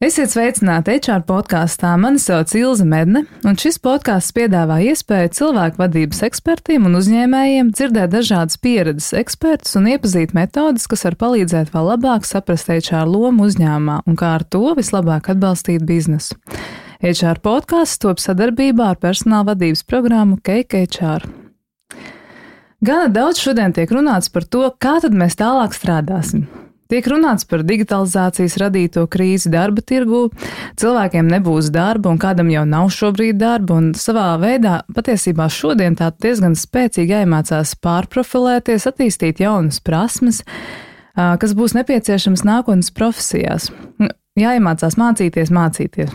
Esiet sveicināti HR podkāstā. Mani sauc Ilze Medne, un šis podkāsts piedāvā iespēju cilvēku vadības ekspertiem un uzņēmējiem dzirdēt dažādas pieredzes ekspertus un iepazīt metodes, kas var palīdzēt vēl labāk saprast HR lomu uzņēmumā un kā ar to vislabāk atbalstīt biznesu. HR podkāsts top sadarbībā ar personāla vadības programmu Cake HR. Gana daudz šodien tiek runāts par to, kā tad mēs tālāk strādāsim. Tiek runāts par digitalizācijas radīto krīzi darba tirgū, cilvēkiem nebūs darba un kādam jau nav šobrīd darba, un savā veidā patiesībā šodien tā diezgan spēcīgi jāiemācās pārprofilēties, attīstīt jaunas prasmes, kas būs nepieciešamas nākotnes profesijās. Jāiemācās mācīties.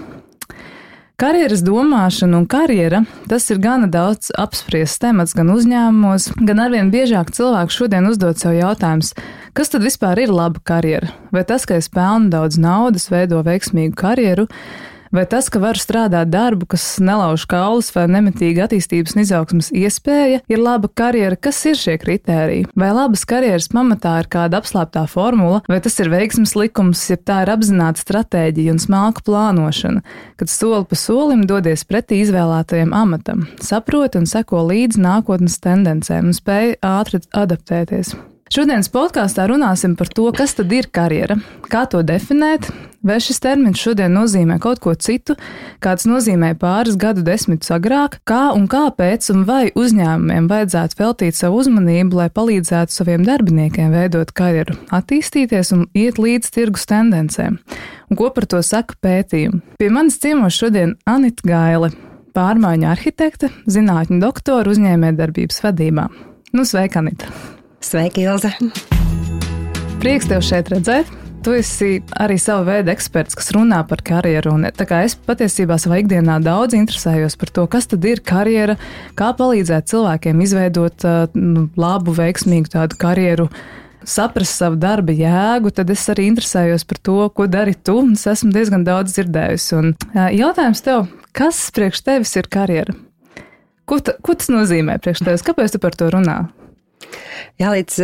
Karjeras domāšana un karjera, tas ir gana daudz apspriests temats gan uzņēmumos, gan arvien biežāk cilvēki šodien uzdod sev jautājumus, kas tad vispār ir laba karjera? Vai tas, ka es pelnu daudz naudas, veido veiksmīgu karjeru, vai tas, ka varu strādāt darbu, kas nelauž kaulus vai nemitīgi attīstības un izaugsmas iespēja, ir laba karjera? Kas ir šie kritēriji? Vai labas karjeras pamatā ir kāda apslēptā formula, vai tas ir veiksmes likums, ja tā ir apzināta stratēģija un smalka plānošana, kad soli pa solim dodies pretī izvēlētajam amatam, saproti un seko līdzi nākotnes tendencēm un spēj ātri adaptēties. Šodienas podkāstā runāsim par to, kas tad ir karjera, kā to definēt, vai šis termins šodien nozīmē kaut ko citu, kāds nozīmē pāris gadu desmitus agrāk, kā un kāpēc un vai uzņēmumiem vajadzētu veltīt savu uzmanību, lai palīdzētu saviem darbiniekiem veidot karjeru, attīstīties un iet līdz tirgus tendencēm. Un ko par to saka pētījumi? Pie manis ciemos šodien Anita Gaile, pārmaiņu arhitekte, zinātņu doktora uzņēmējdarbības vadībā. Sveika, Anita! Sveiki, Ilze! Prieks tev šeit redzēt. Tu esi arī sava veida eksperts, kas runā par karjeru. Un, tā kā es patiesībā savā ikdienā daudz interesējos par to, kas tad ir karjera, kā palīdzēt cilvēkiem izveidot labu, veiksmīgu tādu karjeru, saprast savu darba jēgu, tad es arī interesējos par to, ko dari tu, un es esmu diezgan daudz dzirdējusi. Un jautājums tev, kas priekš tevis ir karjera? Ko tas nozīmē priekš tevis? Kāpēc tu par to runā? Jā, līdz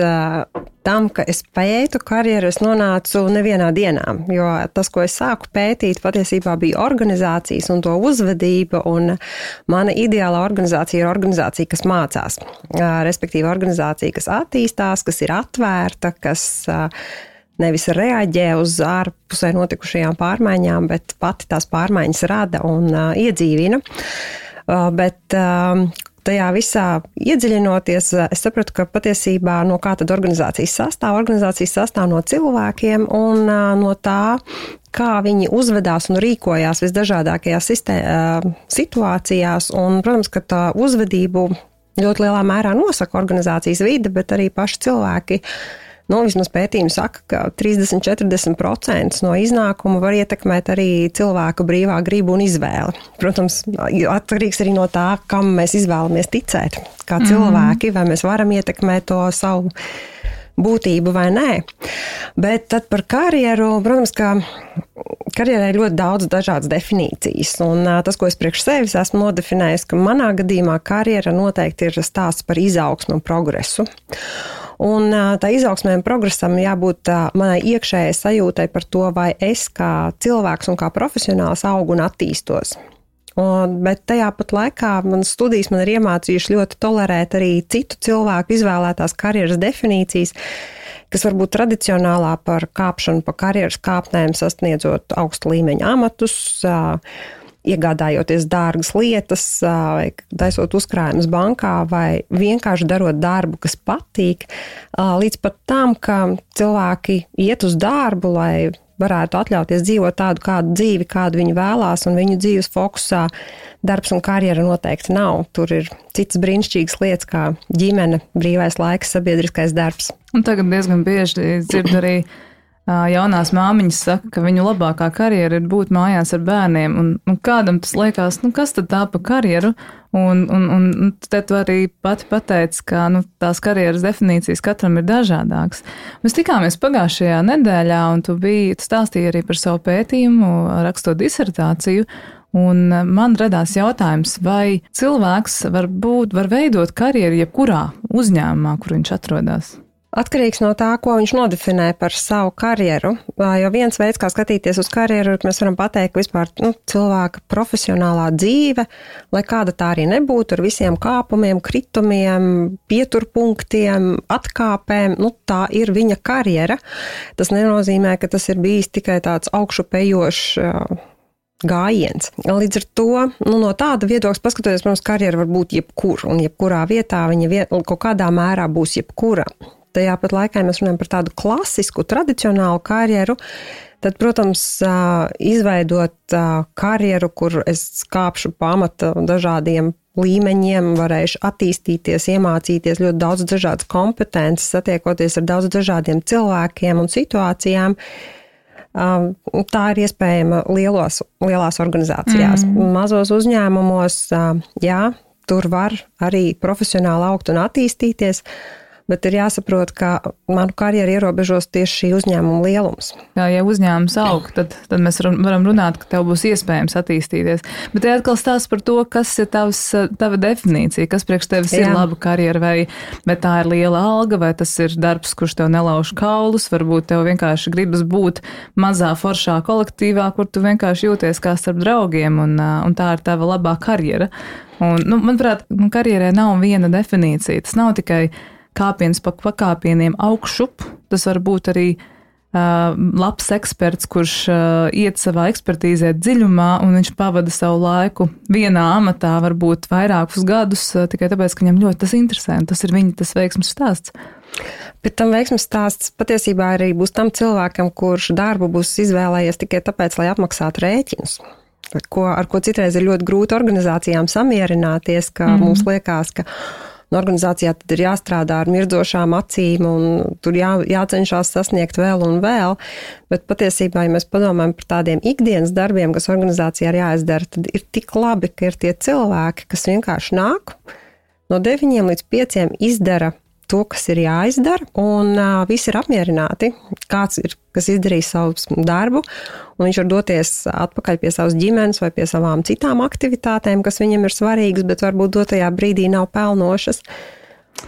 tam, ka es pētu karjeru, es nonācu nevienā dienā, jo tas, ko es sāku pētīt, patiesībā bija organizācijas un to uzvedība, un mana ideālā organizācija ir organizācija, kas mācās, respektīvi organizācija, kas attīstās, kas ir atvērta, kas nevis reaģē uz ārpusē notikušajām pārmaiņām, bet pati tās pārmaiņas rada un iedzīvina. Bet tajā visā iedziļinoties, es sapratu, ka patiesībā no kā tad organizācijas sastāv? Organizācijas sastāv no cilvēkiem un no tā, kā viņi uzvedās un rīkojās visdažādākajās situācijās. Un, protams, ka tā uzvedību ļoti lielā mērā nosaka organizācijas vide, bet arī paši cilvēki. Vismaz pētījumi saka, ka 30–40% no iznākuma var ietekmēt arī cilvēka brīvā griba un izvēle. Protams, atkarīgs arī no tā, kam mēs izvēlamies ticēt, kā cilvēki, vai mēs varam ietekmēt to savu būtību vai nē. Bet tad par karjeru, protams, ka karjerai ir ļoti daudz dažādas definīcijas. Un tas, ko es priekš sevis esmu nodefinējis, ka manā gadījumā karjera noteikti ir stāsts par izaugsmu un progresu. Un tā izaugsmē un progresam jābūt manai iekšējai sajūtai par to, vai es kā cilvēks un kā profesionāls augu un attīstos. Bet tajā pat laikā manas studijas man ir iemācījuši ļoti tolerēt arī citu cilvēku izvēlētās karjeras definīcijas, kas varbūt tradicionālā par kāpšanu pa karjeras kāpnēm, sasniedzot augstu līmeņa amatus, iegādājoties dārgas lietas, vai taisot uzkrājumus bankā, vai vienkārši darot darbu, kas patīk, līdz pat tam, ka cilvēki iet uz darbu, lai varētu atļauties dzīvot tādu kādu dzīvi, kādu viņi vēlās, un viņu dzīves fokusā darbs un karjera noteikti nav. Tur ir citas brīnišķīgas lietas, kā ģimene, brīvais laiks, sabiedriskais darbs. Un tagad diezgan bieži dzird arī jaunās māmiņas saka, ka viņu labākā karjera ir būt mājās ar bērniem, un kādam tas liekas, kas tad tā pa karjeru, un te tu arī pati pateici, ka tās karjeras definīcijas katram ir dažādākas. Mēs tikāmies pagājušajā nedēļā, un tu stāstīji arī par savu pētījumu, rakstot disertāciju, un man radās jautājums, vai cilvēks var veidot karjeru jebkurā uzņēmumā, kur viņš atrodas? Atkarīgs no tā, ko viņš nodefinē par savu karjeru, jo viens veids, kā skatīties uz karjeru, mēs varam pateikt, ka vispār cilvēka profesionālā dzīve, lai kāda tā arī nebūtu, ar visiem kāpumiem, kritumiem, pieturpunktiem, atkāpēm, tā ir viņa karjera. Tas nenozīmē, ka tas ir bijis tikai tāds augšupejošs gājiens. Līdz ar to, no tāda viedokļa paskatoties, protams, karjera var būt jebkur, un jebkurā vietā viņa kaut kādā mērā būs jebkura. Tajā pat laikā mēs runājam par tādu klasisku, tradicionālu karjeru, tad, protams, izveidot karjeru, kur es kāpšu pamata dažādiem līmeņiem, varēšu attīstīties, iemācīties ļoti daudz dažādas kompetences, satiekoties ar daudz dažādiem cilvēkiem un situācijām. Tā ir iespējama lielās organizācijās. Mazos uzņēmumos, tur var arī profesionāli augt un attīstīties, bet ir jāsaprot, ka manu karjeru ierobežos tieši šī uzņēmuma lielums. Ja uzņēmums aug, tad mēs varam runāt, ka tev būs iespējams attīstīties. Bet te atkal stāsts par to, kas ir tava definīcija, kas priekš tevis ir laba karjera, vai tā ir liela alga, vai tas ir darbs, kurš tev nelauž kaulus, varbūt tev vienkārši gribas būt mazā foršā kolektīvā, kur tu vienkārši jūties kā starp draugiem, un tā ir tava labā karjera. Un, manuprāt, karjerai nav viena definīcija. Tas nav tikai kāpiens pa pakāpieniem augšup, tas var būt arī labs eksperts, kurš iet savā ekspertīzē dziļumā, un viņš pavada savu laiku vienā amatā, varbūt vairākus gadus, tikai tāpēc, ka viņam ļoti tas interesē, un tas ir tas veiksmes stāsts. Bet tam veiksmes stāsts patiesībā arī būs tam cilvēkam, kurš darbu būs izvēlējies tikai tāpēc, lai apmaksātu rēķinus. Ar ko citreiz ir ļoti grūti organizācijām samierināties, ka mums liekas, ka organizācijā tad ir jāstrādā ar mirdzošām acīm un tur jācenšas sasniegt vēl un vēl, bet patiesībā, ja mēs padomājam par tādiem ikdienas darbiem, kas organizācijā ir jāizdara, tad ir tik labi, ka ir tie cilvēki, kas vienkārši nāk no 9 līdz 5 izdara to, kas ir jāizdara, un visi ir apmierināti, kāds ir, kas izdarīs savu darbu, un viņš var doties atpakaļ pie savas ģimenes vai pie savām citām aktivitātēm, kas viņam ir svarīgas, bet varbūt dotajā brīdī nav pelnošas.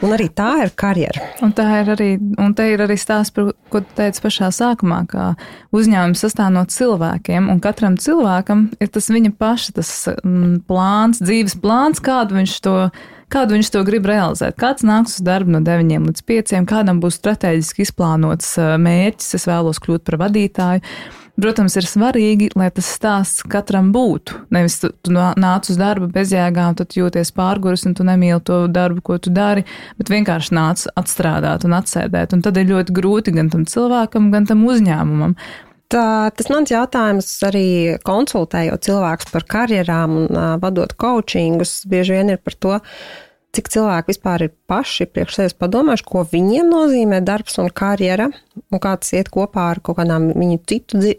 Un arī tā ir karjera. Un te ir arī stāsts, par ko tu teici pašā sākumā, ka uzņēmums sastāv no cilvēkiem, un katram cilvēkam ir tas viņa paša, tas plāns, dzīves plāns, kādu viņš to grib realizēt. Kāds nāks uz darbu no 9 līdz 5, kādam būs strateģiski izplānots mērķis, es vēlos kļūt par vadītāju. Protams, ir svarīgi, lai tas stāsts katram būtu. Nevis tu nāc uz darbu bezjēgām, tad jūties pārguris un tu nemīli to darbu, ko tu dari, bet vienkārši nāc atstrādāt un atsēdēt. Un tad ir ļoti grūti gan tam cilvēkam, gan tam uzņēmumam. Tas mans jautājums arī konsultējot cilvēkus par karjerām un vadot coachingus, bieži vien ir par to, cik cilvēki vispār ir paši priekš sevis padomājuši, ko viņiem nozīmē darbs un karjera, un kā tas iet kopā ar kaut kādām viņu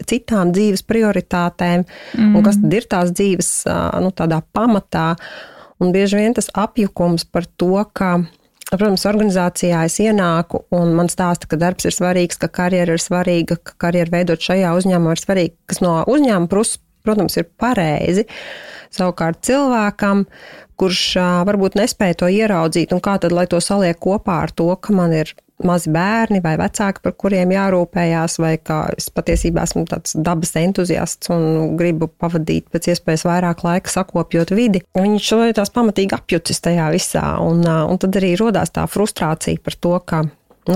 citām dzīves prioritātēm, un kas tad ir tās dzīves tādā pamatā. Un bieži vien tas apjukums par to, ka, protams, organizācijā es ienāku un man stāsta, ka darbs ir svarīgs, ka karjera ir svarīga, ka karjeru veidot šajā uzņēmumā ir svarīga, kas no uzņēmuma puses, protams, ir pareizi. Savukārt cilvēkam, kurš varbūt nespēja to ieraudzīt, un kā tad, lai to saliek kopā ar to, ka man ir mazi bērni vai vecāki, par kuriem jārūpējās, vai kā es patiesībā esmu tāds dabas entuziasts un gribu pavadīt pēc iespējas vairāk laika sakopjot vidi. Viņš tās pamatīgi apjucis tajā visā, un tad arī rodās tā frustrācija par to, ka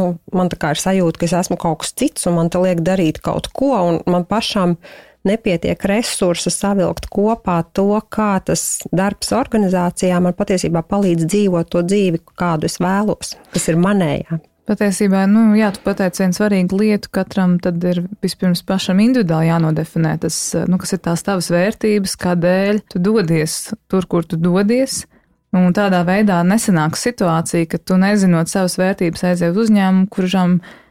man tā kā ir sajūta, ka es esmu kaut kas cits, un man te liek darīt kaut ko, un man pašam nepietiek resursa savilkt kopā to, kā tas darbs organizācijā man patiesībā palīdz dzīvot to dzīvi, kādu es vēlos, kas ir manējā. Patiesībā, tu pateici vienu svarīgu lietu, katram tad ir vispirms pašam individuāli jānodefinē tas, kas ir tās tavas vērtības, kādēļ tu dodies tur, kur tu dodies, un tādā veidā nesanāks situācija, ka tu nezinot savas vērtības aiziet uz uzņēmumu,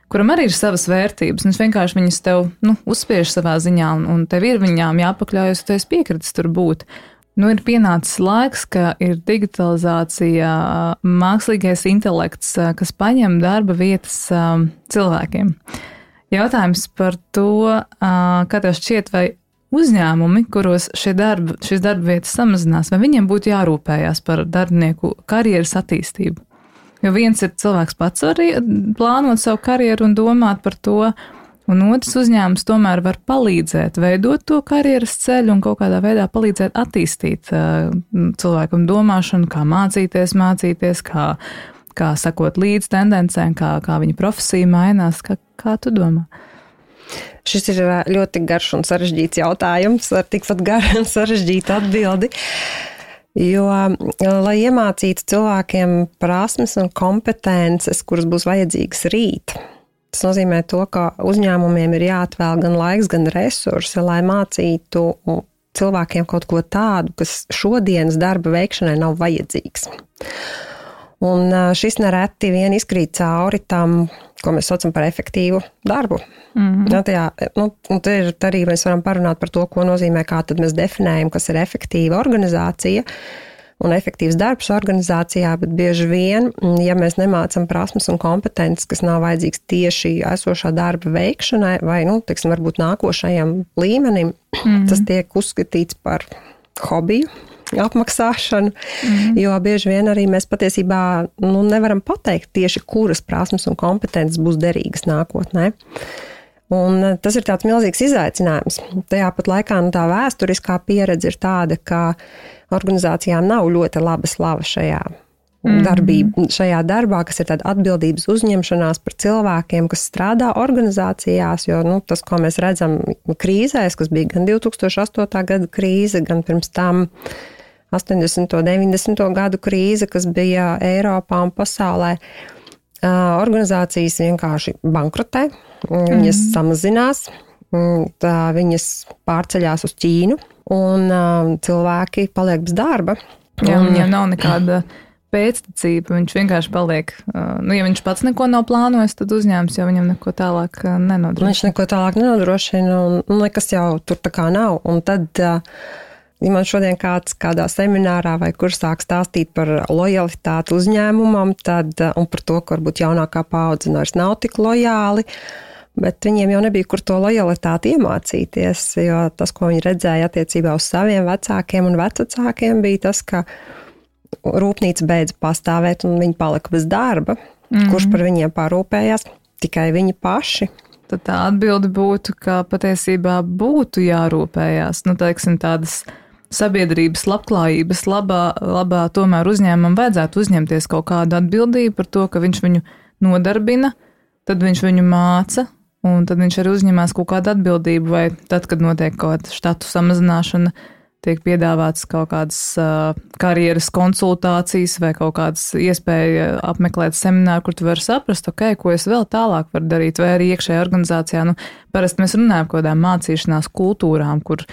kuram arī ir savas vērtības, un es vienkārši viņas tev, uzspiež savā ziņā, un tev ir viņām jāpakļaujas, tu esi piekritis tur būt. Ir pienācis laiks, ka ir digitalizācija, mākslīgais intelekts, kas paņem darba vietas cilvēkiem. Jautājums par to, kā tev šķiet, vai uzņēmumi, kuros šīs darba vietas samazinās, vai viņiem būtu jārūpējās par darbinieku karjeras attīstību? Jo viens ir cilvēks pats arī plānot savu karjeru un domāt par to, un otrs uzņēmums tomēr var palīdzēt veidot to karjeras ceļu un kaut kādā veidā palīdzēt attīstīt cilvēkam domāšanu, kā mācīties, kā sakot līdz tendencēm, kā viņa profesija mainās. Kā tu domā? Šis ir ļoti garš un sarežģīts jautājums ar tikpat garu un sarežģītu atbildi. Jo, lai iemācītu cilvēkiem prasmes un kompetences, kuras būs vajadzīgas rīt, tas nozīmē to, ka uzņēmumiem ir jāatvēl gan laiks, gan resursi, lai mācītu cilvēkiem kaut ko tādu, kas šodienas darba veikšanai nav vajadzīgs. Un šis nereti vien izkrīt cauri tam, ko mēs saucam par efektīvu darbu. Te arī mēs varam parunāt par to, ko nozīmē, kā tad mēs definējam, kas ir efektīva organizācija un efektīvs darbs organizācijā, bet bieži vien, ja mēs nemācam prasmes un kompetences, kas nav vajadzīgs tieši esošā darba veikšanai vai, varbūt nākošajam līmenim, tas tiek uzskatīts par hobiju, apmaksāšanu, jo bieži vien arī mēs patiesībā nevaram pateikt tieši, kuras prasmes un kompetences būs derīgas nākotnē. Un tas ir tāds milzīgs izaicinājums. Tajā pat laikā tā vēsturiskā pieredze ir tāda, ka organizācijām nav ļoti laba slava šajā darbā, kas ir tāda atbildības uzņemšanās par cilvēkiem, kas strādā organizācijās, jo tas, ko mēs redzam krīzēs, kas bija gan 2008. Gada krīze, gan pirms tam 80. un 90. gadu krīze, kas bija Eiropā un pasaulē, organizācijas vienkārši bankrotē, viņas samazinās, viņas pārceļās uz Ķīnu, un cilvēki paliek bez darba. Jā, viņiem nav nekāda pēctecība, viņš vienkārši paliek, ja viņš pats neko nav plānojis, tad uzņēmums jau viņam neko tālāk nenodrošina. Viņš neko tālāk nenodrošina, un nekas jau tur tā kā nav. Un tad, ja man šodien kāds kādā seminārā vai kur sāk stāstīt par lojalitāti uzņēmumam, un par to, ka varbūt jaunākā paudze vairs nav tik lojāli, bet viņiem jau nebija kur to lojalitāti iemācīties, jo tas, ko viņi redzēja attiecībā uz saviem vecākiem un vecvecākiem, bija tas, ka rūpnīca beidza pastāvēt un viņi palika bez darba. Kurš par viņiem parūpējās? Tikai viņi paši. Tad tā atbilde būtu, ka patiesībā būtu jārūpējās, tādas sabiedrības labklājības labā tomēr uzņēmumam vajadzētu uzņemties kaut kādu atbildību par to, ka viņš viņu nodarbina, tad viņš viņu māca, un tad viņš arī uzņemās kaut kādu atbildību, vai tad, kad notiek kaut kāda štatu samazināšana, tiek piedāvāts kaut kādas karjeras konsultācijas vai kaut kādas iespēja apmeklēt semināru, kur tu vari saprast, ko es vēl tālāk varu darīt, vai arī iekšējā organizācijā. Parasti mēs runājam par kādām mācīšanās kultūrām, kur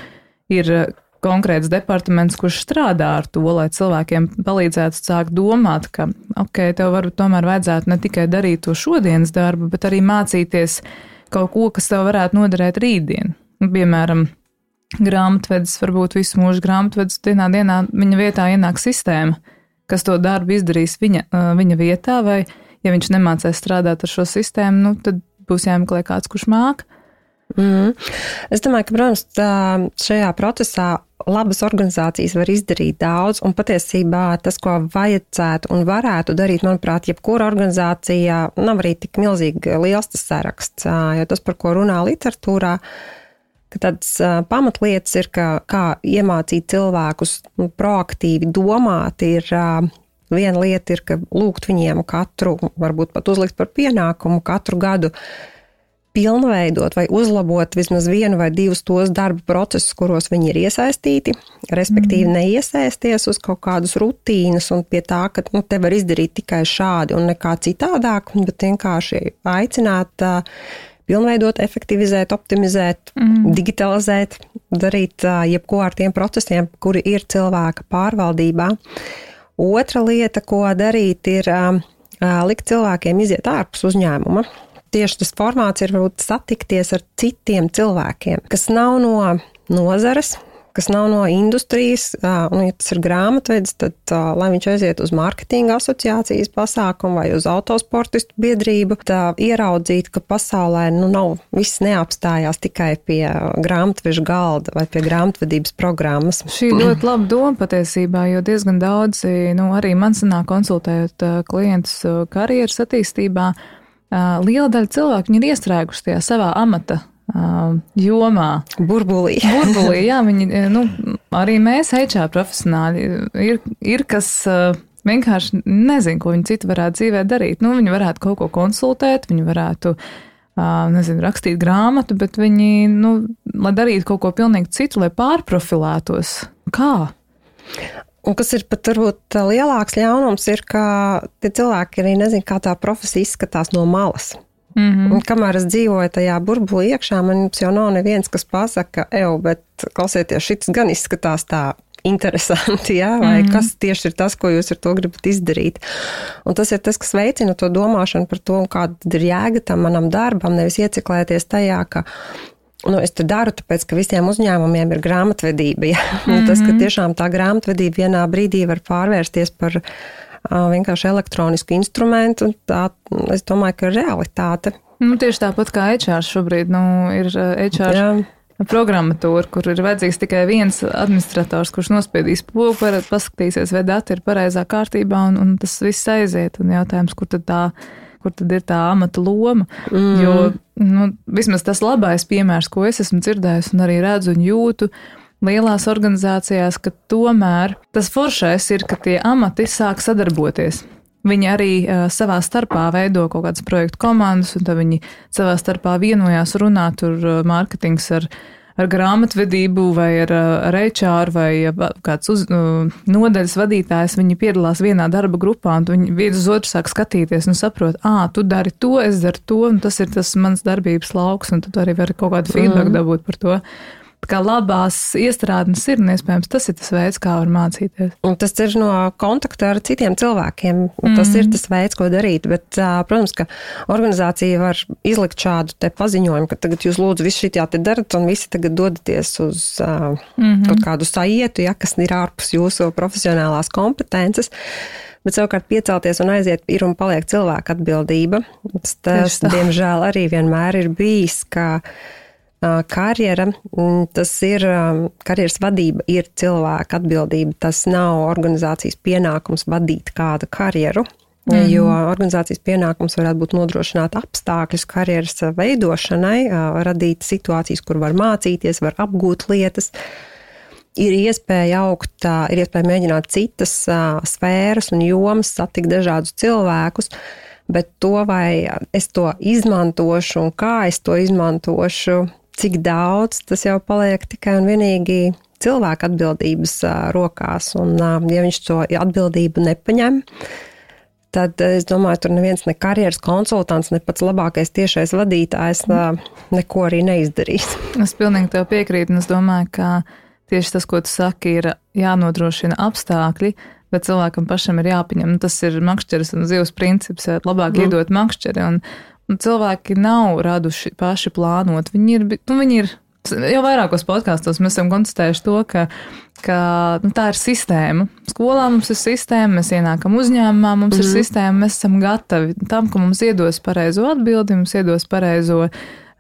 ir konkrēts departaments, kurš strādā ar to, lai cilvēkiem palīdzētu sākt domāt, ka, tev varbūt tomēr vajadzētu ne tikai darīt to šodienas darbu, bet arī mācīties kaut ko, kas tev varētu noderēt rītdien. Piemēram, grāmatvedis, varbūt visu mūžu grāmatvedis, dienā viņa vietā ienāk sistēma, kas to darbu izdarīs viņa vietā, vai ja viņš nemācēs strādāt ar šo sistēmu, tad būs jāmeklē kāds, kurš māk. Es domāju, ka, protams, šajā procesā labas organizācijas var izdarīt daudz, un patiesībā tas, ko vajadzētu un varētu darīt, manuprāt, jebkura organizācija nav arī tik milzīgi liels tas saraksts, jo tas, par ko runā literatūrā, ka tādas pamatlietas ir, kā iemācīt cilvēkus proaktīvi domāt, ir viena lieta ir, ka lūgt viņiem varbūt pat uzlikt par pienākumu katru gadu pilnveidot vai uzlabot vismaz vienu vai divus tos darba procesus, kuros viņi ir iesaistīti, respektīvi neiesaisties uz kaut kādus rutīnas un pie tā, ka te var izdarīt tikai šādi un nekā citādāk, bet vienkārši aicināt pilnveidot, efektivizēt, optimizēt, digitalizēt, darīt jebko ar tiem procesiem, kuri ir cilvēka pārvaldībā. Otra lieta, ko darīt, ir likt cilvēkiem iziet ārpus uzņēmuma. Tieši tas formāts ir varbūt satikties ar citiem cilvēkiem, kas nav no nozares, kas nav no industrijas, un ja tas ir grāmatvedis, tad lai viņš aiziet uz mārketinga asociācijas pasākumu vai uz autosportistu biedrību, tā ieraudzīt, ka pasaulē nav viss neapstājās tikai pie grāmatveža galda vai pie grāmatvedības programmas. Šī ļoti laba doma patiesībā, jo diezgan daudzi, arī man sanāk konsultējot klientus karjeras attīstībā, liela daļa cilvēku viņi ir iestrēguši tajā savā amata jomā. Burbulī, jā, viņi, arī mēs HR profesionāļi ir kas vienkārši nezin, ko viņi citu varētu dzīvē darīt. Viņi varētu kaut ko konsultēt, viņi varētu, rakstīt grāmatu, bet viņi, lai darītu kaut ko pilnīgi citu, lai pārprofilētos. Kā? Un kas ir pat varbūt lielāks ļaunums ir, ka tie cilvēki arī nezin, kā tā profesija izskatās no malas. Un kamēr es dzīvoju tajā burbulī iekšā, man jau nav neviens, kas pasaka, bet klausieties, šits gan izskatās tā interesanti, jā, vai kas tieši ir tas, ko jūs ar to gribat izdarīt. Un tas ir tas, kas veicina to domāšanu par to, kāda ir jēga tam manam darbam, nevis ieciklēties tajā, ka es to daru, tāpēc, ka visiem uzņēmumiem ir grāmatvedība. Ja? Tas, ka tiešām tā grāmatvedība vienā brīdī var pārvērsties par vienkārši elektronisku instrumentu, tā, es domāju, ka ir realitāte. Tieši tāpat kā HR šobrīd, ir HR programmatūra, kur ir vajadzīgs tikai viens administrators, kurš nospiedīs pogu, paskatīsies, vai dati ir pareizā kārtībā, un tas viss aiziet. Un jautājums, kur tad ir tā amata loma, jo vismaz tas labais piemērs, ko es esmu dzirdējis un arī redzu un jūtu lielās organizācijās, ka tomēr tas foršais ir, ka tie amati sāk sadarboties. Viņi arī savā starpā veido kaut kādas projektu komandas, un tad viņi savā starpā vienojās runāt tur mārketings ar grāmatvedību vai ar HR vai kāds nodaļas vadītājs, viņi piedalās vienā darba grupā un viņi viens uz otru sāk skatīties un saprot, tu dari to, es daru to, un tas ir tas mans darbības lauks, un tu arī vari kaut kādu feedback dabūt par to. Kā labās iestrādnes ir, un iespējams tas ir tas veids, kā var mācīties. Un tas ir no kontakta ar citiem cilvēkiem. Tas ir tas veids, ko darīt. Bet, protams, ka organizācija var izlikt šādu te paziņojumu, ka tagad jūs lūdzu visu šitā te darat, un visi tagad dodaties uz kaut kādu saietu, kas ir ārpus jūsu profesionālās kompetences. Bet savukārt piecelties un aiziet ir un paliek cilvēka atbildība. Tas diemžēl, arī vienmēr ir bijis, ka karjera, tas ir, karjeras vadība ir cilvēka atbildība, tas nav organizācijas pienākums vadīt kādu karjeru, jo organizācijas pienākums varētu būt nodrošināt apstākļus karjeras veidošanai, radīt situācijas, kur var mācīties, var apgūt lietas, ir iespēja augt, ir iespēja mēģināt citas sfēras un jomas, satikt dažādus cilvēkus, bet to, vai es to izmantošu un kā es to izmantošu, cik daudz, tas jau paliek tikai un vienīgi cilvēka atbildības rokās. Un, ja viņš to atbildību nepaņem, tad, es domāju, tur neviens ne karjeras konsultants, ne pats labākais tiešais vadītājs neko arī neizdarīs. Es pilnīgi tev piekrītu, un es domāju, ka tieši tas, ko tu saki, ir jānodrošina apstākļi, bet cilvēkam pašam ir jāpaņem. Tas ir makšķeres un zivs princips, labāk iedot makšķeri, un cilvēki nav raduši paši plānot. Viņi ir jau vairākos podkastos mēs esam konstatējuši to, ka tā ir sistēma. Skolā mums ir sistēma, mēs ienākam uzņēmumā, mums ir sistēma, mēs esam gatavi tam, ka mums iedos pareizo atbildi, mums iedos pareizo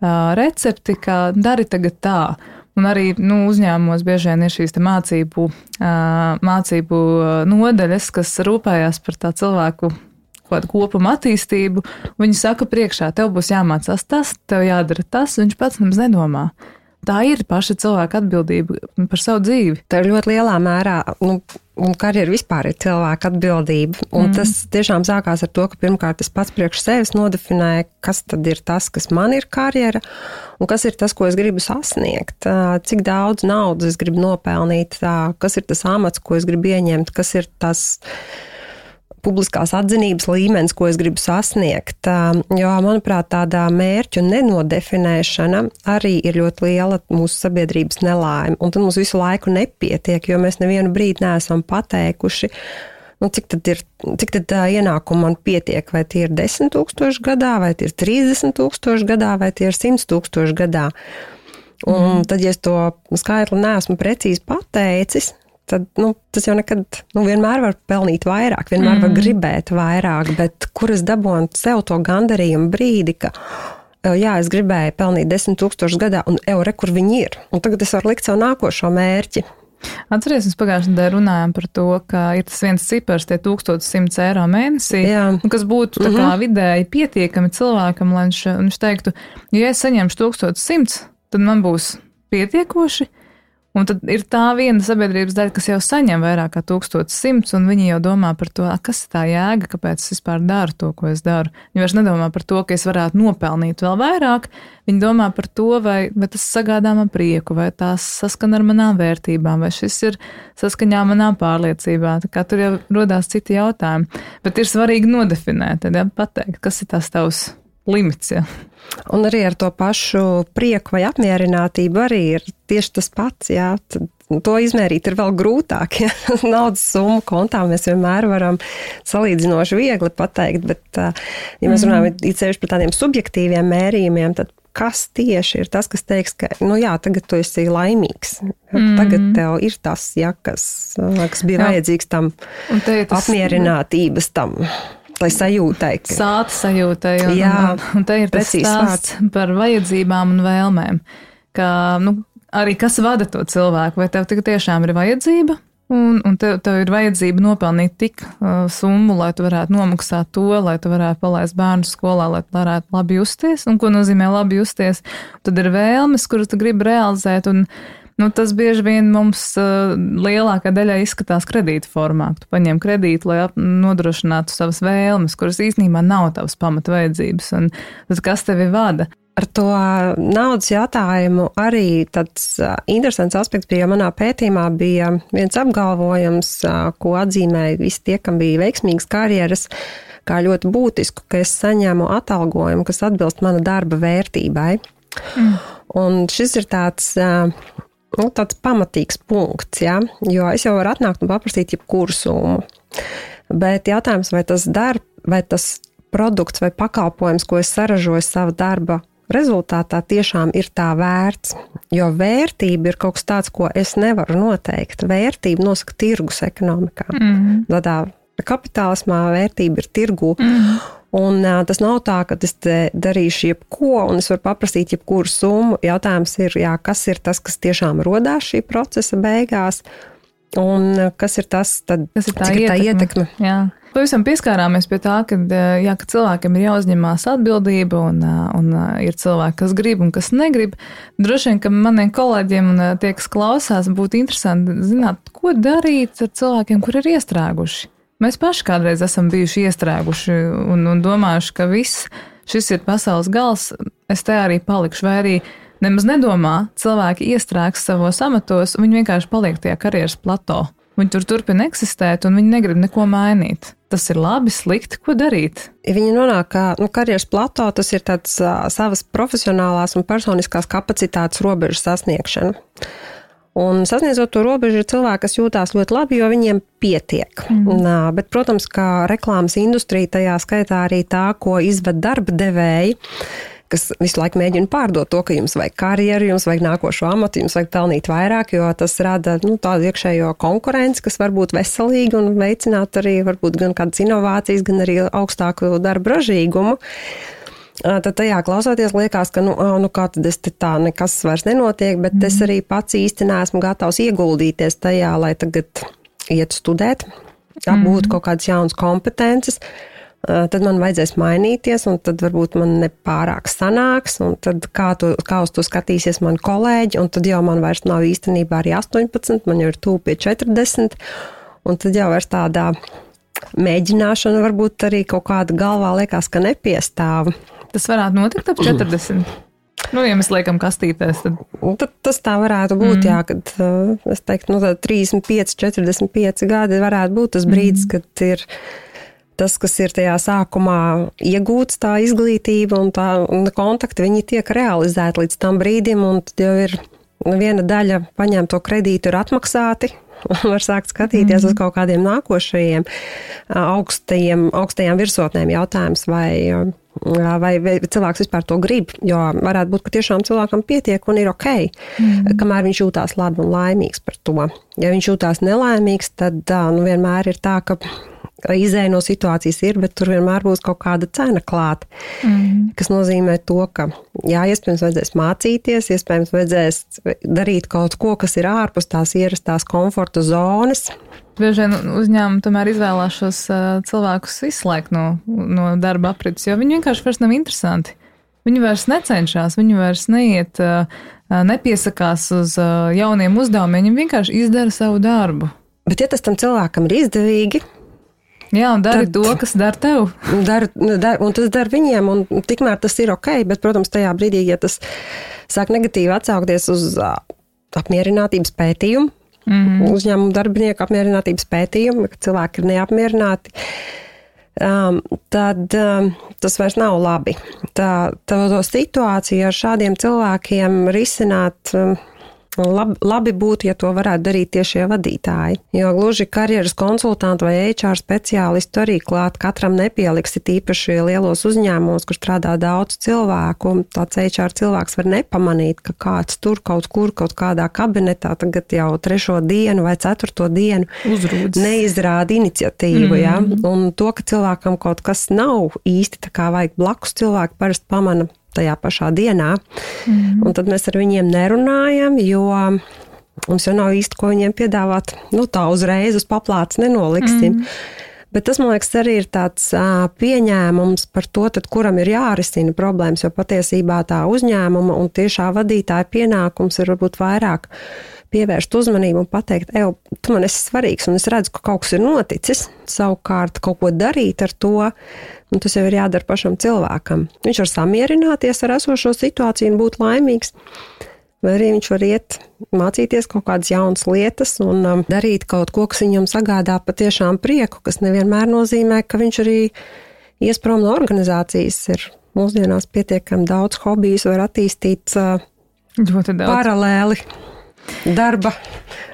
recepti, ka dari tagad tā. Un arī uzņēmumos bieži vien ir šīs te mācību nodaļas, kas rūpējās par tā cilvēku kādu kopuma attīstību. Viņi saka priekšā, tev būs jāmācās tas, tev jādara tas, viņš pats nemaz nedomā. Tā ir paša cilvēka atbildība par savu dzīvi. Tā ir ļoti lielā mērā, un karjera vispār ir cilvēka atbildība. Un tas tiešām sākās ar to, ka pirmkārt es pats priekš sevis nodefinēju, kas tad ir tas, kas man ir karjera, un kas ir tas, ko es gribu sasniegt. Cik daudz naudas es gribu nopelnīt, kas ir tas amats, ko es gribu ieņemt, kas ir tas publiskās atzinības līmenis, ko es gribu sasniegt. Jo, manuprāt, tādā mērķu nenodefinēšana arī ir ļoti liela mūsu sabiedrības nelaime. Un tad mums visu laiku nepietiek, jo mēs nevienu brīdi neesam pateikuši, cik tad ienākumu man pietiek, vai tie ir 10 000 gadā, vai tie ir 30 000 gadā, vai tie ir 100 000 gadā. Un tad, ja es to skaitli neesmu precīzi pateicis, tad, tas jau nekad, vienmēr var pelnīt vairāk, vienmēr var gribēt vairāk, bet kur es dabūnu sev to gandarījumu brīdi, ka, jā, es gribēju pelnīt 10 000 gadā, un kur viņi ir. Un tagad es varu likt savu nākošo mērķi. Atceries, mēs pagājušajā nedēļā runājām par to, ka ir tas viens cipars, tie 1100 eiro mēnesī, kas būtu tā kā vidēji pietiekami cilvēkam, lai viņš teiktu, ja es saņemšu 1100, tad man būs pietiekoši, un tad ir tā viena sabiedrības daļa, kas jau saņem vairāk kā 1100, un viņi jau domā par to, kas ir tā jēga, kāpēc es vispār daru to, ko es daru. Viņi vairs nedomā par to, ka es varētu nopelnīt vēl vairāk, viņi domā par to, vai tas sagādā man prieku, vai tās saskan ar manām vērtībām, vai šis ir saskaņā manām pārliecībām. Tā kā tur jau rodās citi jautājumi, bet ir svarīgi nodefinēt, tad pateikt, kas ir tās tavs limits, ja. Un arī ar to pašu prieku vai apmierinātību arī ir tieši tas pats, jā. To izmērīt ir vēl grūtāk, ja. Naudas summu kontā mēs vienmēr varam salīdzinoši viegli pateikt, bet, ja mēs runājam īpaši par tādiem subjektīviem mērījumiem, tad kas tieši ir tas, kas teiks, ka, jā, tagad tu esi laimīgs. Tagad tev ir tas, ja, kas bija vajadzīgs tam apmierinātības tam. Tai sajūtai. Sāta sajūtai. Un te ir tas stāsts par vajadzībām un vēlmēm. Ka, arī kas vada to cilvēku, vai tev tiešām ir vajadzība, un tev ir vajadzība nopelnīt tik summu, lai tu varētu nomaksāt to, lai tu varētu palaist bērnu skolā, lai tu varētu labi justies, un ko nozīmē labi justies. Tad ir vēlmes, kuras tu gribi realizēt, un tas bieži vien mums lielākā daļā izskatās kredīta formā. Tu paņem kredītu, lai nodrošinātu savas vēlmes, kuras īstenībā nav tavas pamata vajadzības. Un tad kas tevi vada? Ar to naudas jautājumu arī tāds interesants aspekts bija, jo manā pētījumā bija viens apgalvojums, ko atzīmēja visi tie, kam bija veiksmīgas karjeras, kā ļoti būtisku, ka es saņēmu atalgojumu, kas atbilst mana darba vērtībai. Un šis ir tāds pamatīgs punkts, ja? Jo es jau varu atnākt un paprasīt jebkuru summu. Bet jautājums, vai tas produkts vai pakalpojums, ko es saražoju sava darba rezultātā, tiešām ir tā vērts. Jo vērtība ir kaut kas tāds, ko es nevaru noteikt. Vērtība nosaka tirgus ekonomikā. Tādā kapitālismā vērtība ir tirgu. Un tas nav tā, ka es darīšu jebko, un es varu paprasīt jebkuru summu. Jautājums ir, kas ir tas, kas tiešām rodās šī procesa beigās, un kas ir tas, tad, kas ir tā ietekme. Jā. Pavisam pieskārāmies pie tā, ka cilvēkiem ir jāuzņemās atbildība, un ir cilvēki, kas grib un kas negrib. Droši vien, ka maniem kolēģiem un tie, kas klausās, būtu interesanti zināt, ko darīt ar cilvēkiem, kur ir iestrēguši. Mēs paši kādreiz esam bijuši iestrēguši un domājuši, ka šis ir pasaules gals, es te arī palikšu, vai arī nemaz nedomā, cilvēki iestrēgs savos amatos, un viņi vienkārši paliek tajā karjeras plato. Viņi tur turpina eksistēt, un viņi negrib neko mainīt. Tas ir labi, slikti, ko darīt? Viņi nonāk, ka karjeras plato, tas ir tāds savas profesionālās un personiskās kapacitātes robežu sasniegšana. Un sasniedzot to robežu ir cilvēki, kas jūtās ļoti labi, jo viņiem pietiek. Bet, protams, kā reklāmas industrija, tajā skaitā arī tā, ko izved darba devēji, kas visu laiku mēģina pārdot to, ka jums vajag karjeru, jums vajag nākošo amatu, jums vajag pelnīt vairāk, jo tas rada tādu iekšējo konkurenci, kas var būt veselīga un veicināt arī varbūt gan kādas inovācijas, gan arī augstāku darba ražīgumu. Tad tajā klausoties liekas, ka kā tad es te tā nekas vairs nenotiek, bet es arī pats īsti neesmu gatavs ieguldīties tajā, lai tagad iet studēt, apgūt kaut kādas jaunas kompetences, tad man vajadzēs mainīties, un tad varbūt man nepārāk sanāks, un tad kā uz to skatīsies mani kolēģi, un tad jau man vairs nav īstenībā arī 18, man jau ir tuvu pie 40, un tad jau vairs tādā mēģināšana varbūt arī kaut kāda galvā liekas, ka nepiestāv. Tas varētu notikt ap 40. Ja mēs liekam kastītēs, tad tas tā varētu būt, kad es teiktu, 35, 45 gadi varētu būt tas brīdis, kad ir tas, kas ir tajā sākumā iegūts, tā izglītība un kontakti, viņi tiek realizēti līdz tam brīdim, un tad jau ir viena daļa paņemto kredītu ir atmaksāti, var sākt skatīties uz kaut kādiem nākošajiem augstajām virsotnēm jautājums, vai vai cilvēks vispār to grib, jo varētu būt, ka tiešām cilvēkam pietiek un ir ok, kamēr viņš jūtās labi un laimīgs par to. Ja viņš jūtās nelaimīgs, tad vienmēr ir tā, ka izēja no situācijas ir, bet tur vienmēr būs kaut kāda cena klāt, kas nozīmē to, ka iespējams vajadzēs mācīties, iespējams vajadzēs darīt kaut ko, kas ir ārpus tās ierastās komforta zonas. Bieži vien uzņēmumi tomēr izvēlās šos cilvēkus izslēgt no darba aprits, jo viņi vienkārši vairs nav interesanti. Viņi vairs necenšas, viņi vairs neiet, nepiesakās uz jauniem uzdevumiem, viņi vienkārši izdara savu darbu. Bet ja tas tam cilvēkam ir izdevīgi, jā, un dari to, kas dara tev. Un tas dara viņiem, un tikmēr tas ir ok, bet, protams, tajā brīdī, ja tas sāk negatīvi atsaukties uz apmierinātības pētījumu, uzņēmumu darbinieku apmierinātības pētījumu, ka cilvēki ir neapmierināti, tad tas vairs nav labi. To situāciju ar šādiem cilvēkiem risināt labi būtu, ja to varētu darīt tiešie vadītāji. Jo gluži karjeras konsultantu vai HR speciālistu arī klāt katram nepieliksi, tīpaši lielos uzņēmumos, kur strādā daudz cilvēku. Tāds HR cilvēks var nepamanīt, ka kāds tur kaut kādā kabinetā tagad jau 3. dienu vai 4. dienu uzrūdas, neizrāda iniciatīvu. Ja? Un to, ka cilvēkam kaut kas nav īsti tā kā vajag blakus, cilvēki parasti pamana tajā pašā dienā. Un tad mēs ar viņiem nerunājam, jo mums jau nav īsti, ko viņiem piedāvāt. Tā uzreiz uz paplātes nenoliksim. Bet tas, man liekas, arī ir tāds pieņēmums par to, tad, kuram ir jārisina problēmas, jo patiesībā tā uzņēmuma un tiešā vadītāja pienākums ir varbūt vairāk pievērst uzmanību un pateikt, tu man esi svarīgs, un es redzu, ka kaut kas ir noticis, savukārt kaut ko darīt ar to, un tas jau ir jādara pašam cilvēkam. Viņš var samierināties ar esošo situāciju un būt laimīgs, vai arī viņš var iet mācīties kaut kādas jaunas lietas un darīt kaut ko, kas viņam sagādā patiešām prieku, kas nevienmēr nozīmē, ka viņš arī ies prom no organizācijas. Ir mūsdienās pietiekami daudz hobijus, var attīstīt paralēli darba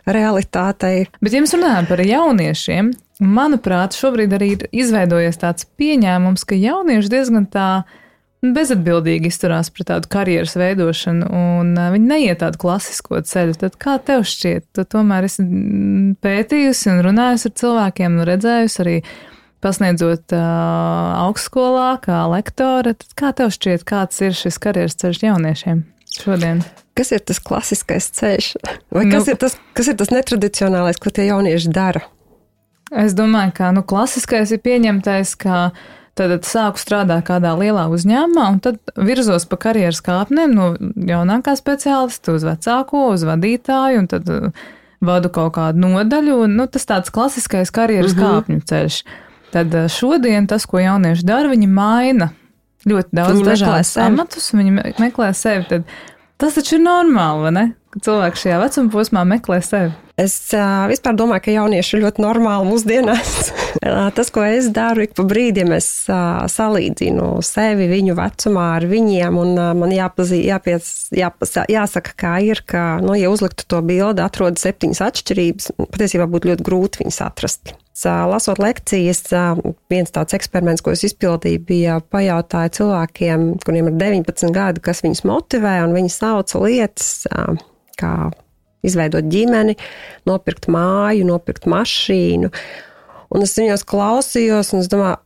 realitātei. Bet, ja mēs runājam par jauniešiem, manuprāt, šobrīd arī ir izveidojies tāds pieņēmums, ka jaunieši diezgan tā bezatbildīgi izturās pret tādu karjeras veidošanu, un viņi neiet tādu klasisko ceļu. Tad kā tev šķiet? Tu tomēr esi pētījusi un runājusi ar cilvēkiem, un redzējusi arī pasniedzot augstskolā kā lektore. Tad kā tev šķiet, kāds ir šis karjeras ceļš jauniešiem šodien? Kas ir tas klasiskais ceļš? Vai kas ir tas netradicionālais, ko tie jaunieši dara? Es domāju, ka klasiskais ir pieņemtais, ka tad sāku strādāt kādā lielā uzņēmumā un tad virzos pa karjeras kāpnēm no jaunākā speciālista uz vecāko, uz vadītāju un tad vadu kaut kādu nodaļu. Tas tāds klasiskais karjeras kāpņu ceļš. Tad šodien tas, ko jaunieši dara, viņi maina ļoti daudz dažādus amatus, viņi meklē sevi. Tad tas taču ir normāli, vai ne? Ka cilvēki šajā vecuma posmā meklē sevi. Es vispār domāju, ka jaunieši ir ļoti normāli mūsdienās. Tas, ko es daru, ik pa brīdim es salīdzinu sevi viņu vecumā ar viņiem, un man jāsaka, kā ir, ka, ja uzliktu to bildi, atrod 7 atšķirības, patiesībā būtu ļoti grūti viņas atrast. Lasot lekcijas, viens tāds eksperiments, ko es izpildīju, bija pajautāja cilvēkiem, kuriem ir 19 gadi, kas viņus motivē, un viņi sauca lietas, kā izveidot ģimeni, nopirkt māju, nopirkt mašīnu. Un es viņos klausījos, un es domāju,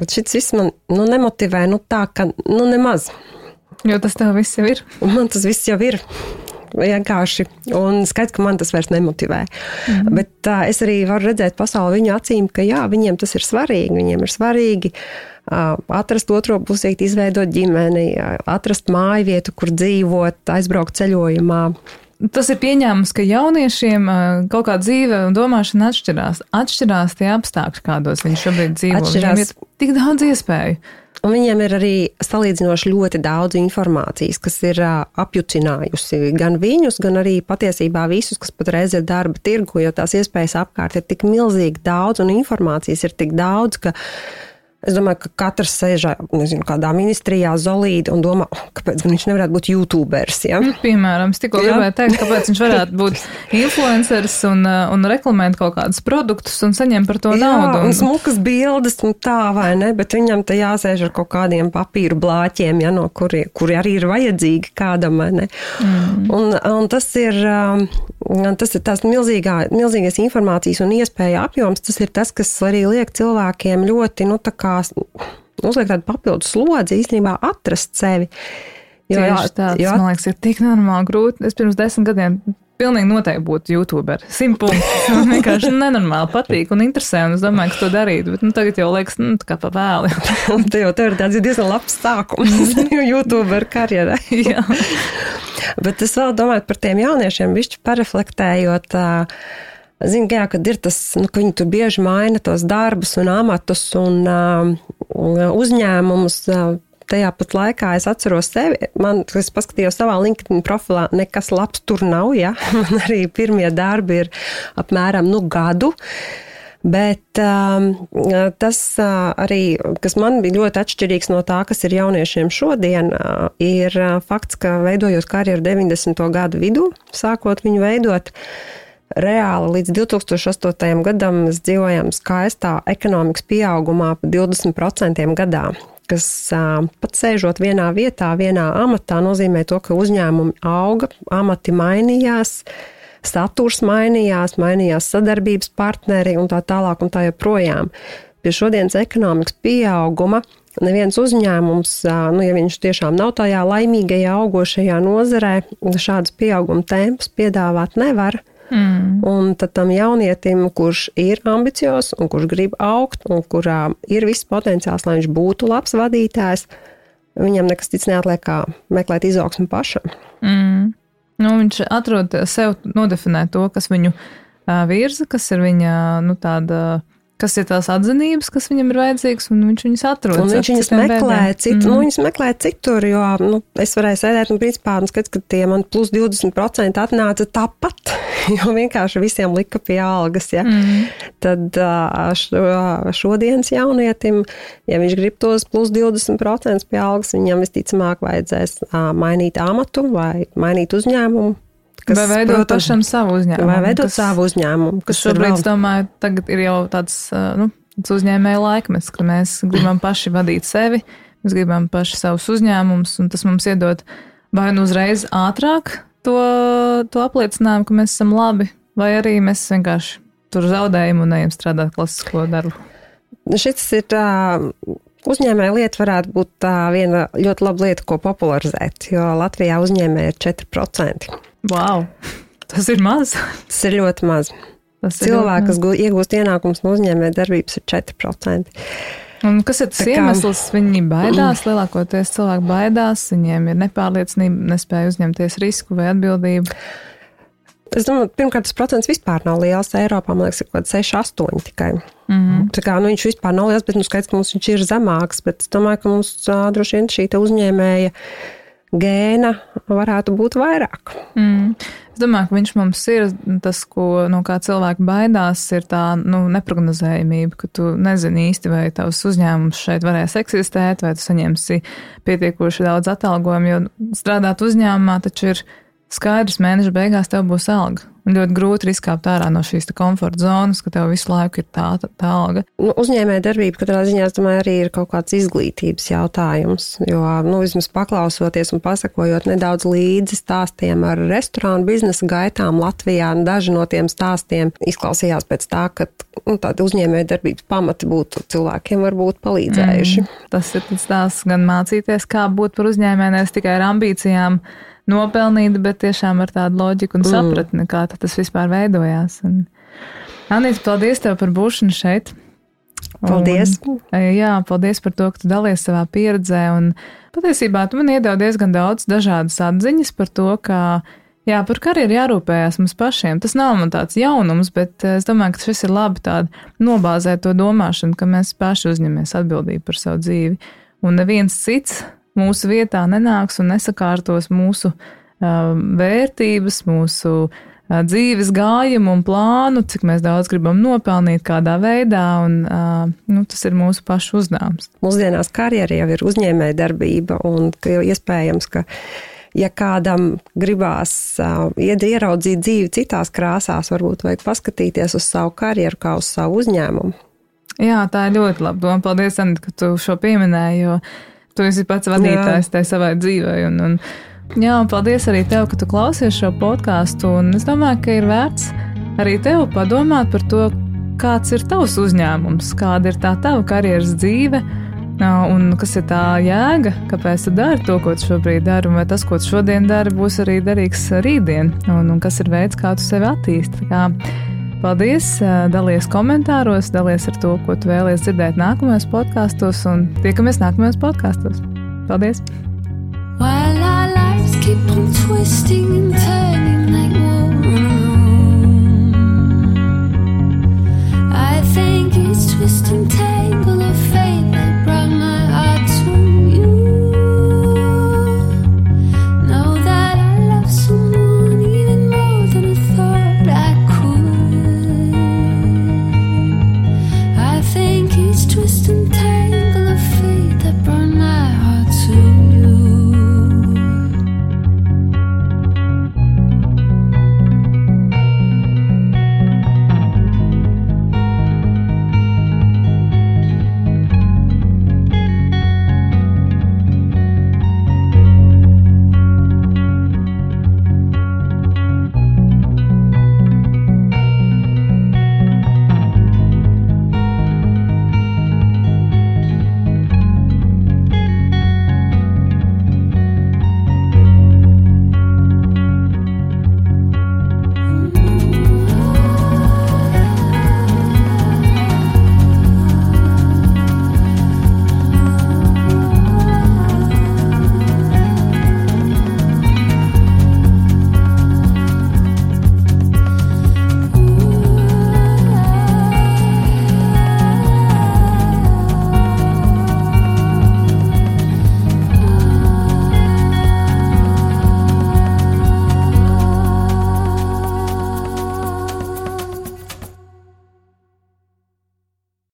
šis viss man nemotivē, tā, ka nemaz. Jo tas tev viss jau ir. Man tas viss jau ir. Vienkārši. Un skaidrs, ka man tas vairs nemotivē. Bet es arī varu redzēt pasauli viņu acīm, ka jā, viņiem tas ir svarīgi. Viņiem ir svarīgi atrast otro pusīti, izveidot ģimeni, atrast māju vietu, kur dzīvot, aizbraukt ceļojumā. Tas ir pieņēmums, ka jauniešiem kaut kā dzīve un domāšana atšķirās. Atšķirās tie apstākļi, kādos viņi šobrīd dzīvo. Viņiem ir tik daudz iespēju. Un viņiem ir arī salīdzinoši ļoti daudz informācijas, kas ir apjucinājusi gan viņus, gan arī patiesībā visus, kas patreiz ir darba tirgu, jo tās iespējas apkārt ir tik milzīgi daudz un informācijas ir tik daudz, ka Es domāju, ka katrs sēžā, nezinu, kādā ministrijā zolīdi un domā, kāpēc viņš nevarētu būt YouTuberis, ja? Piemēram, es tikko gribēju teikt, kāpēc viņš varētu būt influenceris un reklamēt kaut kādus produktus un saņemt par to naudu. Un smukas bildes un tā, vai ne? Bet viņam te jāsēž ar kaut kādiem papīru blāķiem, ja, no kuri arī ir vajadzīgi kādam, vai ne? Un tas ir tās milzīgais informācijas un iespēja apjoms, tas ir tas, kas arī liek cilvēkiem ļoti, tā kā uzliek tādu papildus slodzi īstenībā atrast sevi. Tieši tāds, man liekas, ir tik normāli grūti. Es pirms 10 gadiem pilnīgi noteikti būtu YouTuber. 100 punktus. Man vienkārši nenormāli patīk un interesē, un es domāju, ka to darītu. Bet tagad jau liekas, tā kā pa vēli. Tev ir tāds diezgan labs sākums YouTuber karjerai. Jā. Bet es vēl domāju par tiem jauniešiem, bišķi pareflektējot, zinu, jā, kad ir tas, ka viņi tur bieži maina tos darbus un amatus un uzņēmumus. Tajā pat laikā es atceros sevi, es paskatījos savā LinkedIn profilā, nekas labs tur nav, ja? Man arī pirmie darbi ir apmēram, gadu. Bet tas arī, kas man bija ļoti atšķirīgs no tā, kas ir jauniešiem šodien, ir fakts, ka veidojot karjeru 90. gadu vidū, sākot viņu veidot, reāli līdz 2008. gadam mēs dzīvojam skaistā ekonomikas pieaugumā pa 20% gadā, kas pat sēžot vienā vietā, vienā amatā, nozīmē to, ka uzņēmumi auga, amati mainījās, saturs mainījās sadarbības partneri un tā tālāk un tā joprojām. Pie šodienas ekonomikas pieauguma neviens uzņēmums, ja viņš tiešām nav tajā laimīgajā augošajā nozarē, šādus pieauguma tempus piedāvāt nevar. Un tad tam jaunietim, kurš ir ambiciozs un kurš grib augt un kurā ir viss potenciāls, lai viņš būtu labs vadītājs, viņam nekas cits neatliek kā meklēt izaugsmu pašam. Viņš atrod sev nodefinēt to, kas viņu virza, kas ir viņa, kas ir tās atzinības, kas viņam ir vajadzīgas, un viņš viņas atrod. Un viņš viņas meklē citur, jo es varēju sēdēt un principā skats, ka tie man plus 20% atnāca tāpat, jo vienkārši visiem lika pie algas, ja. Tad šodienas jaunietim, ja viņš grib tos plus 20% pie algas, viņam visticamāk vajadzēs mainīt amatu vai mainīt uzņēmumu. Vai veidot pašam savu uzņēmumu. Vai veidot savu uzņēmumu. Kas šobrīd, domāju, tagad ir jau tāds uzņēmēja laikmets, ka mēs gribam paši vadīt sevi, mēs gribam paši savus uzņēmumus, un tas mums iedod vai uzreiz ātrāk to apliecinājumu, ka mēs esam labi, vai arī mēs vienkārši tur zaudējam un ejam strādāt klasisko darbu. Šis ir uzņēmēja lieta varētu būt viena ļoti laba lieta, ko popularizēt, jo Latvijā uzņēmēja ir 4%. Wow, tas ir maz. Tas ir ļoti maz. Cilvēki, kas iegūst ienākums no uzņēmēja darbības, ir 4%. Un kas ir tas iemesls? Viņi baidās, lielākoties cilvēki baidās, viņiem ir nepārliecība, nespēja uzņemties risku vai atbildību. Es domāju, pirmkārt, tas procents vispār nav liels. Eiropā, man liekas, ir kaut kāds 6-8 tikai. Tā kā, viņš vispār nav liels, bet skaidrs, ka mums viņš ir zemāks, bet es domāju, ka mums droši vien šī uzņēmēja gēna varētu būt vairāk. Es domāju, ka viņš mums ir tas, no kā cilvēki baidās, ir tā neprognozējumība, ka tu nezini īsti, vai tavs uzņēmums šeit varēs eksistēt, vai tu saņemsi pietiekoši daudz atalgojumu, jo strādāt uzņēmumā taču ir skaidrs, mēneša beigās tev būs alga. Un ļoti grūti izkāpt ārā no šīs komforta zonas, ka tev visu laiku ir tā alga. Uzņēmēja darbība katrā ziņā, es domāju, arī ir kaut kāds izglītības jautājums, jo, vismaz paklausoties un pasakojot nedaudz līdzi stāstiem ar restorānu biznesa gaitām Latvijā, daži no tiem stāstiem izklausījās pēc tā, ka tāda uzņēmēja darbības pamati būtu cilvēkiem varbūt palīdzējuši. Tas ir tas stāsts gan mācīties, kā būt par uzņēmēju, nevis tikai ar ambīcijām nopelnīt, bet tiešām ar tādu loģiku un sapratni, kā tas vispār veidojās. Anīta, paldies tev par būšanu šeit. Paldies. Paldies par to, ka tu dalies savā pieredzē, un patiesībā tu man iedevi diezgan daudz dažādas atziņas par to, ka par karjeru jārūpējās mums pašiem. Tas nav man tāds jaunums, bet es domāju, ka šis ir labi tāda nobāzēt to domāšanu, ka mēs paši uzņemamies atbildību par savu dzīvi, un neviens cits mūsu vietā nenāks un nesakārtos mūsu vērtības, mūsu dzīves gājumu un plānu, cik mēs daudz gribam nopelnīt, kādā veidā, un tas ir mūsu pašu uzdevums. Mūsdienās karjera jau ir uzņēmēja darbība, un iespējams, ka ja kādam gribās ieraudzīt dzīvi citās krāsās, varbūt vajag paskatīties uz savu karjeru kā uz savu uzņēmumu. Jā, tā ir ļoti laba doma. Paldies, Anita, ka tu šo pieminēji, jo tu esi pats vadītājs tai savai dzīvei. Un paldies arī tev, ka tu klausies šo podcastu, un es domāju, ka ir vērts arī tev padomāt par to, kāds ir tavs uzņēmums, kāda ir tā tava karjeras dzīve, un kas ir tā jēga, kāpēc tu dari to, ko tu šobrīd dari, un vai tas, ko tu šodien dari, būs arī derīgs rītdien, un kas ir veids, kā tu sevi attīsti. Paldies, dalies komentāros, dalies ar to, ko tu vēlies dzirdēt nākamajos podkastos, un tiekamies nākamajos podkastos. Paldies! While our lives keep on twisting and turning.